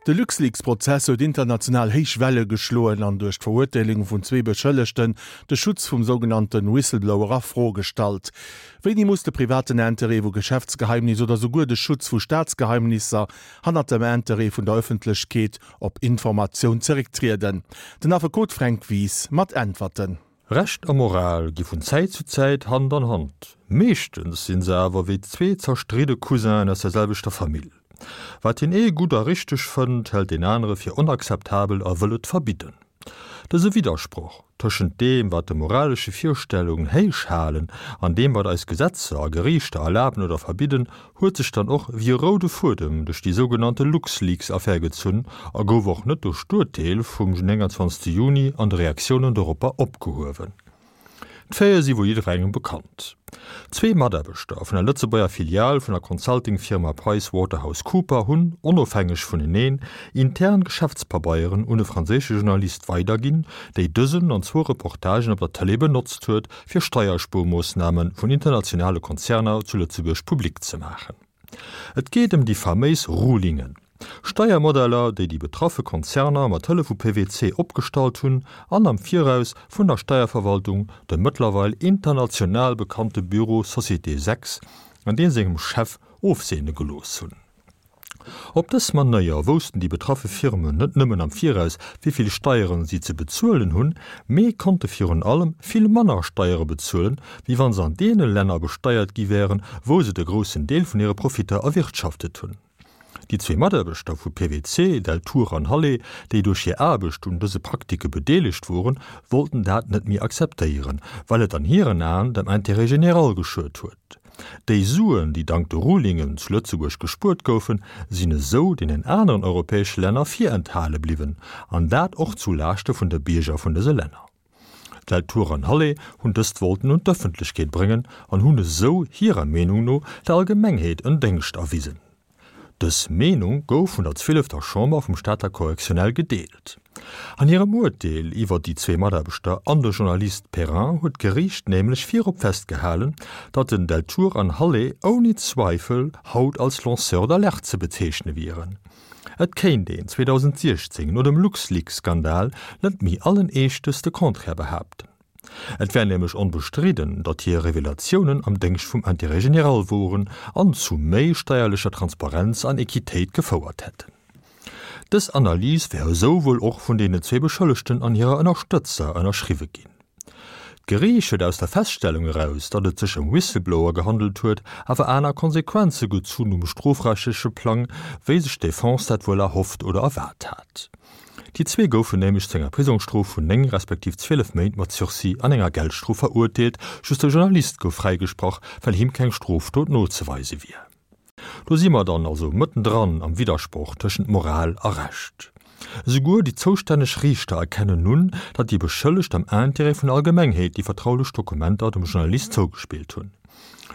De LuxLeaks-Prozess huet international héich Welle geschloen an duerch d'Verurteelung vun zwee Beschëllegten de Schutz vum sougenannte Whistleblower a Fro gestallt. Wéini muss de privaten Interêt vu Geschäftsgeheimnis oder souguer de Schutz vu Staatsgeheimnisser hannert dem Interêt vun der Ëffentlechkeet op Informatioun zerécktrieden? Den Affekot Fränk Wies mat Äntwerten. Recht a Moral gi vun Zäit zu Zäit Hand an Hand. Meeschtens sinn se awer wéi zwee zerstridde Cousinen aus der selwechter Famill. Wat deen ee gutt a richteg fënnt, hält deen anere fir onakzeptabel a wëll et verbidden. Dëse Widdersproch tëschent deem, wat de moralesche Virstellungen héich halen, an deem, wat eis Gesetzer a Geriichter erlaben oder verbidden, huet sech dann och wéi e roude Fuedem duerch déi sougenannte LuxLeaks-Affär gezunn a gouf och net duerch d'Urteel vum 29 Juni an de Reaktiounen doropper opgehuewen. D'Faite si wuel jidderengem bekannt. Zwee Mataarbechter vun der Lëtzebuerger Filial vun der Consulting-Firma PricewaterhouseCooper hunn, onofhängeg vuneneen, intern Geschäftspabeieren un e franséische Journalist weiderginn, déi dësen an zwou Reportagen op der Tëlee benotzt huet, fir Steierspuermoossname vun internationale Konzerner zu Lëtzebuerg public ze maachen. Et geet ëm déi faméis Rulingen, Steiermodeller, déi déi betraffe Konzerner mat Hëllef vu PwC opgestallt hunn an am Viraus vun der Steierverwaltung, dem mëttlerweil international bekannte Büro Société 6 an deem sengem Chef, ofseene gelooss hunn. Op dës Manéier woussten déi betraffe Firmen net nëmmen am Viraus, wéi vill Steieren si ze bezuelen hunn, mee konnte virun allem vill manner Steiere bezuelen, wéi wa se an deene Länner besteiert gi wären, wou se de groussen Deel vun hire Profitter erwirtschaftet hunn. Déi zwee Mataarbechter vu PwC, Deltour an Hallé, déi duerch hir Aarbecht un dëse Praktike bedeelegt woren, wollten dat net méi akzeptéieren, well et an hiren Aen dem Intérêt général geschuet huet. Déi Suen, déi dank de Rulingen zu Lëtzebuerg gespuert goufen, sinn esou deenen aneren europäesche Länner virenthale bliwwen, an dat och zu Laaschte vun de Bierger vun dëse Länner. Deltour an Hallé hunn dëst wollten un d'Ëffentlechkeet bréngen an hunn esou hirer Meenung no der Allgemengheet en Déngscht erwisen. Dës Meenung gouf vun der zwielefter Chamber vum Stater Correctionnel gedeelt. An hirem Urteel iwwer déi zwee Mataarbechter an de Journalist Perrin huet d'Geriicht nämlech virop festgehalen, datt den Deltour an Hallé ouni Zweifel haut als Lanceurs d'alerte ze bezeechne wieren. Et kéint een 2016 no dem LuxLeaks-Skandal net méi allen Eeschtes de Contraire behaapten. Et wär nämlech onbestridden, datt hir Revelatiounen am Déngscht vum Intérêt général woren an zu méi steierlecher Transparenz an Equitéit gefouert hätten. Dës Analys wär esou wuel och vun deenen zwee Beschëllegten an hirer Ënnerstëtzer ënnerschriwwe ginn. D'Geriicht huet aus der Feststellung eraus, datt et sech ëm Whistleblower gehandelt huet, awer aner Konsequenze gezunn um strofrechtleche Plang, wéi sech d'Defense dat wuel erhofft oder erwaart hat. Déi zwee goufen nämlech zu enger Prisongsstrof vun 9 respektiv 12 Méint mat Sursis an enger Geldstrof verurteelt, just de Journalist gouf fräigesprach, well him keng Strofdot nozeweise wier. Do si mer dann also mëttendran am Widdersproch tëschent Moral a Recht. Esouguer déi zoustänneg Riichter erkennen un, datt déi Beschëllegt am Intérêt vun der Allgemengheet déi vertraulech Dokumenter dem Journalist zougespillt hunn.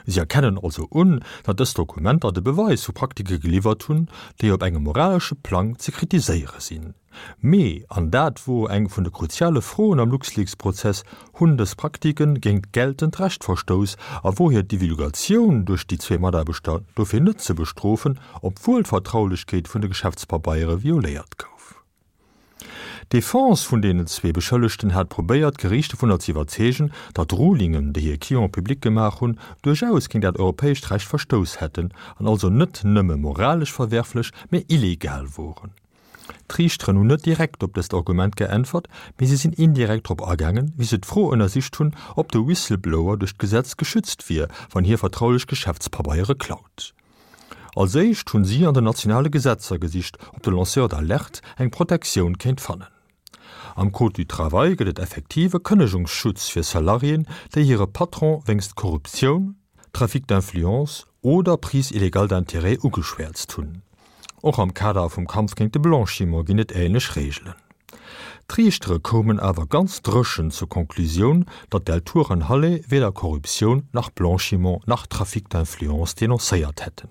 Si erkennen also un, datt dës Dokumenter de Beweis vu Praktike geliwwert hunn, déi op engem moralesche Plang ze kritiséiere sinn. Mee, an dat wor eng vun de kruziale Froen am LuxLeaks-Prozess, hunn dës Praktike géint geltend Recht verstouss a wor hir Divulgatioun duerch déi zwee Mataarbechter dofir net ze bestrofen, obwuel d'Vertraulechkeet vun de Geschäftspabeiere violéiert gouf? D'Defense vun deenen zwee Beschëllegten hat probéiert, d'Geriicht dovunner ze iwwerzeegen, datt d'Rulingen, déi hir Cliente public gemaach hunn, duerchaus géint dat europäescht Recht verstouss hätten an also net nëmme moralesch verwerflech, mee illegal woren. D'Riichteren hunn net direkt op dëst Argument geäntwert, mee si sinn indirekt drop agaangen, wéi se d'Fro ënnersicht hunn, ob de Whistleblower duerch d'Gesetz geschützt wier, wann hie vertraulech Geschäftspabeiere klaut. Als éischt hunn si an den nationale Gesetzer gesicht, ob de Lanceur d'alerte eng Protektioun kéint fannen. Am Code du travail gëtt et effektiv e Kënnegungsschutz fir Salariéen, déi hire Patron wéinst Korruptioun, Trafic d'influence oder Prise illégale d'intérêts ugeschwäerzt hunn. Och am Kader vum Kampf géint de Blanchiment ginn et änlech Reegelen. D'Riichtere koumen awer ganz dréchen zur Conclusioun, datt Deltour an Halle weder Korruptioun nach Blanchiment nach Trafic d'influence denoncéiert hätten.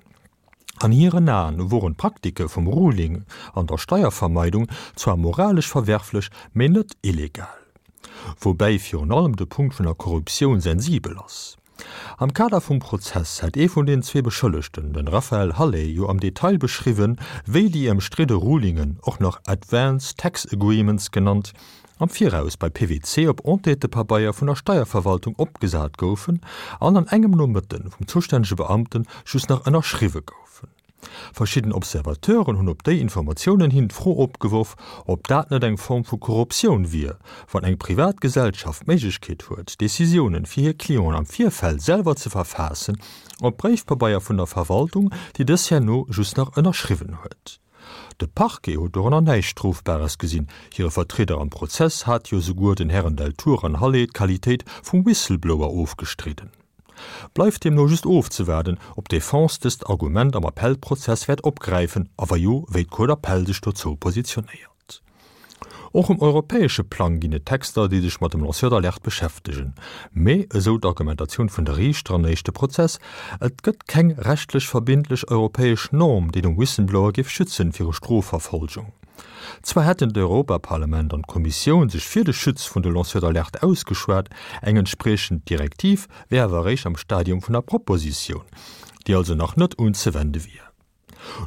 An hiren Aen woren d'Praktike vum Ruling an der Steiervermeidung zwar moralesch verwerflech, mee net illegal. Woubäi virun allem de Punkt vun der Korruptioun sensibel ass. Am Kader vum Prozess hätt ee vun den zwee Beschëllegten, den Raphaël Halet, jo am Detail beschriwwen, wéi déi ëmstridde Rulingen, och nach Advance Tax Agreements genannt, am Viraus bei PwC op Entêtepabeier vun der Steierverwaltung opgesat goufen an an engem Nomëtte vum zustännege Beamte just nach ënnerschriwwe goufen. Verschidden Observateuren hunn op déi Informatiounen hin d'Fro opgeworf, ob dat net eng Form vu Korruptioun wier, wann eng privat Gesellschaft d'Méiglechkeet huet, Decisiounen fir hir Clienten am Virfeld selwer ze verfaassen, op Bréifpabeier vun der Verwaltung, déi dës herno just nach ënnerschriwwen huet. De Parquet huet dorënner näischt Strofbares gesinn, hire Vertrieder am Prozess hat jo souguer den Hären Deltour an Halet d'Qualitéit vum Whistleblower ofgestridden. Bleift deemno just ofzewaarden, ob d'Defense dëst Argument am Appellprozess wäert opgräifen a wa jo, wéi d'Cour d'appel sech dozou positionéiert. Och um europäesche Plang ginn et Texter, déi sech mat dem Lanceur d'alerte beschäftegen. Mee, esou d'Argumentatioun vun de Riichter am éischte Prozess, et gëtt keng rechtlech verbindlech europäesch Norm, déi de Whistleblower géif schützen viru Strofverfolgung. Zwar hätten d'Europaparlament an d'Kommissioun sech fir de Schutz vun de Lanceurs d'alerte ausgeschwat, eng entspriechend Direktiv wär awer eréischt am Stadium vun der Propositioun, déi also nach net unzewende wier.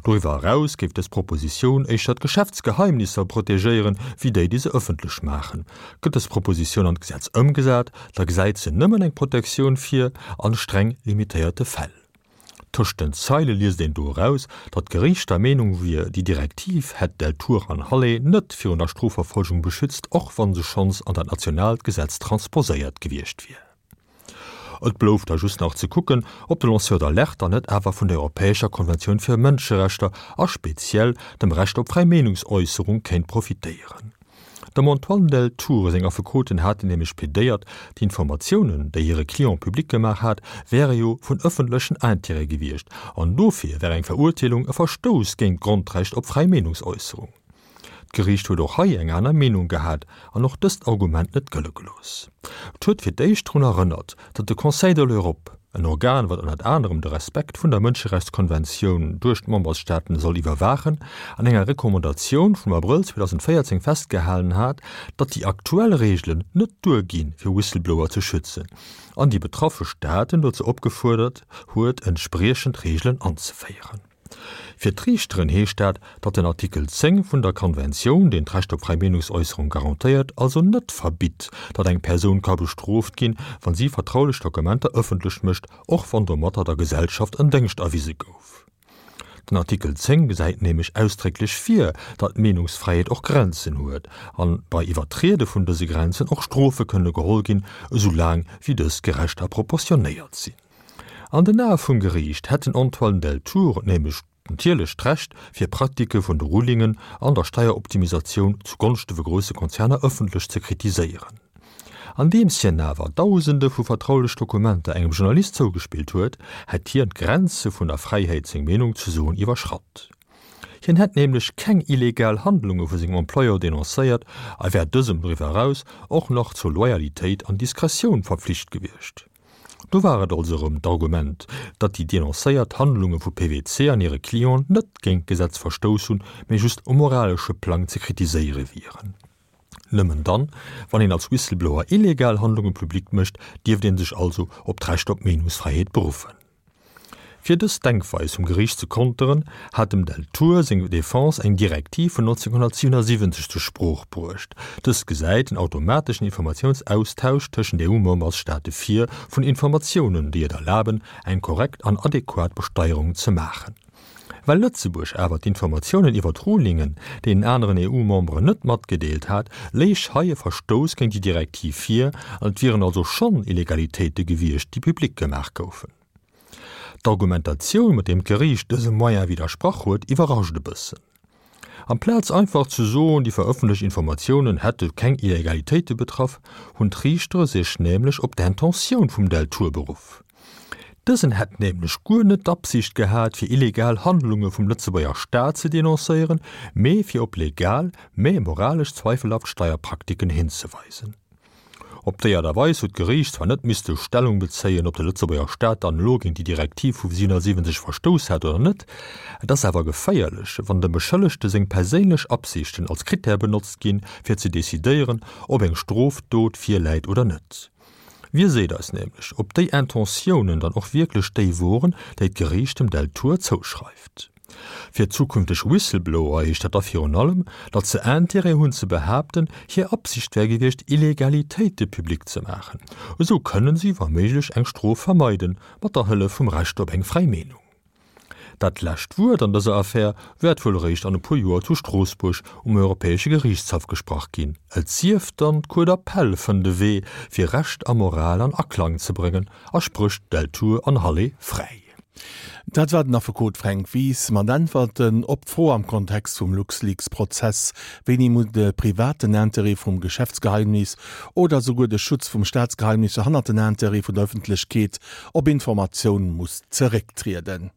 Doriwwer eraus géif dës Propositioun éischter d'Geschäftsgeheimnisser protegéieren, wéi déi, déi se ëffentlech maachen. Gëtt dës Propositioun an d'Gesetz ëmgesat, da gesäit se nëmmen eng Protektioun vir an streng limitéierte Fäll. Tëscht den Zeile liest een do eraus, datt d'Geriicht der Meenung wier, déi Direktiv hätt Deltour an Halle net virun der Strofverfolgung beschützt, och wa se schonns an dat nationaalt Gesetz transposéiert gewiescht wier. Et blouf da just nach ze kucken, ob de Lanceur d'alerte dann net awer vun der Europäescher Konventioun fir Mënscherechter a speziell dem Recht op fräi Meenungsäusserung kéint profitéieren. Dem Antoine Deltour seng Affekoten haten nämlech plädéiert, d'Informatiounen, déi hire Client public gemaach hat, wäre jo vun ëffentlechen Intérêt gewiescht an dofir wär eng Verurteelung e Verstouss géint d'Grondrecht op fräi Meenungsäusserung. D'Geriicht huet och hei eng aner Meenung gehat an och dëst Argument net gëlle gelooss. Et huet fir d'éischt drun erënnert, datt de Conseil de l'Europe, en Organ, wat ënnert anerem de Respekt vun der Mënscherechtskonventioun duerch d'Memberstaaten soll iwwerwaachen, an enger Recommandatioun vum Abrëll 2014 festgehalen hat, datt déi aktuell Reegelen net duerginn, fir Whistleblower ze schützen, an déi betraffe Staaten dozou opgefuerdert huet, entspriechend Reegelen anzeféieren. Fir d'Riichteren heescht dat, datt den Artikel 10 vun der Konventioun, deen d'Recht op fräi Meenungsäusserung garantéiert, also net verbitt, datt eng Persoun ka bestrooft ginn, wa si vertraulech Dokumenter ëffentlech mécht, och wann domatter der Gesellschaft en Déngscht erwise gouf. Den Artikel 10 gesäit nämlech ausdrécklech vir, datt d'Meenungsfräiheet och Grenzen huet an bei Iwwertriede vun dëse Grenzen och Strofe kënne geholl ginn, esou laang wéi dës gerecht a proportionéiert sinn. An den Ae vum Geriicht hätt den Antoine Deltour nämlech natierlech d'Recht, fir Praktike vun de Rulingen an der Steieroptimisatioun zu Gonschte vu grousse Konzerner ëffentlech ze kritiséieren. Andeems hien awer Dausende vu vertraulech Dokumenter engem Journalist zougespillt huet, hätt hien d'Grenze vun der Fräiheet seng Meenung ze soen iwwerschratt. Hien hätt nämlech keng illegal Handlunge vu sengem Employeur denoncéiert a wär dësem doriwwer eraus och nach zur Loyalitéit an Diskretioun verpflicht gewiescht. Do war et also erëm d'Argument, datt déi denoncéiert Handlunge vu PwC an hire Clienten net géint d'Gesetz verstouss hunn, mee just um moralesche Plang ze kritiséiere wieren. Nëmmen dann, wann een als Whistleblower illegal Handlunge public mécht, dierft ee sech also op d'Recht op Meenungsfräiheet beruffen. Fir dës Denkweis vum Geriicht ze konteren, hat dem Deltour seng Defense eng Direktiv vun 1977 zur Sprooch bruecht. Dës gesäit en automateschen Informatiounsaustausch tëschent EU-Membersstaate vir vun Informatiounen, déi et erlaben, eng korrekt an adequat Besteierung ze maachen. Well Lëtzebuerg awer d'Informatiounen iwwer d'Rulingen deenen aneren EU-Memberen net matgedeelt hat, léich hei e Verstouss géint déi Direktiv vir an et wieren also schonn Illegalitéite gewiescht, déi public gemaach goufen. D'Argumentatioun, mat deem d'Geriicht dësem Moyen widdersprach huet, iwwerrascht e bëssen. Amplaz einfach ze soen, déi verëffentlecht Informatiounen hätte keng Illegalitéite betraff, hunn d'Riichtere sech nämlech op d'Intentioun vum Deltour beruff. Dësen hätt nämlech guer net d'Absicht gehat, fir illegal Handlunge vum Lëtzebuerger Staat ze denoncéieren, mee fir op legal, mä moralesch zweifelhaft Steierpraktiken hinzeweisen. Op déi Aart a Weis huet d'Geriicht zwar net misste Stellung bezéien, ob de Lëtzebuerger Staat dann elo géint déi Direktiv vu 77 verstouss hat oder net. Et ass awer geféierlech, wann dem Beschëllegte seng perséinlech Absichten als Critère benotzt ginn, fir ze decidéieren, ob eng Strofdot virläit oder net. Wie seet eis nämlech, ob déi Intentiounen dann och wierklech déi woren, déi d'Geriicht dem Deltour zouschreift? Fir zukünfteg Whistleblower heescht dat da virun allem, datt se Intérêt hunn ze behaapten, hir Absicht wär gewiescht, Illegalitéite public ze maachen. Esou kënnen si wa méiglech eng Strof vermeiden, mat der Hëllef vum Recht op eng fräi Meenung. Dat lescht Wuert an dëser Affär wäert wuel eréischt an e puer Joer zu Stroossbuerg um Europäesche Geriichtshaff gesprach ginn, et sief dann, d'Cour d'appel fënnt e Wee, fir Recht a Moral an Aklang ze bréngen a sprécht Deltour an Halle fräi. Dat war den Affekot Fränk Wies mat Äntwerten op d'Fro am Kontext vum LuxLeaks-Prozess, Wéini muss de privaten Interêt vum Geschäftsgeheimnis oder souguer de Schutz vum Staatsgeheimnisser hannert den Interêt vun der Ëffentlechkeet op Informatioun muss zerécktrieden?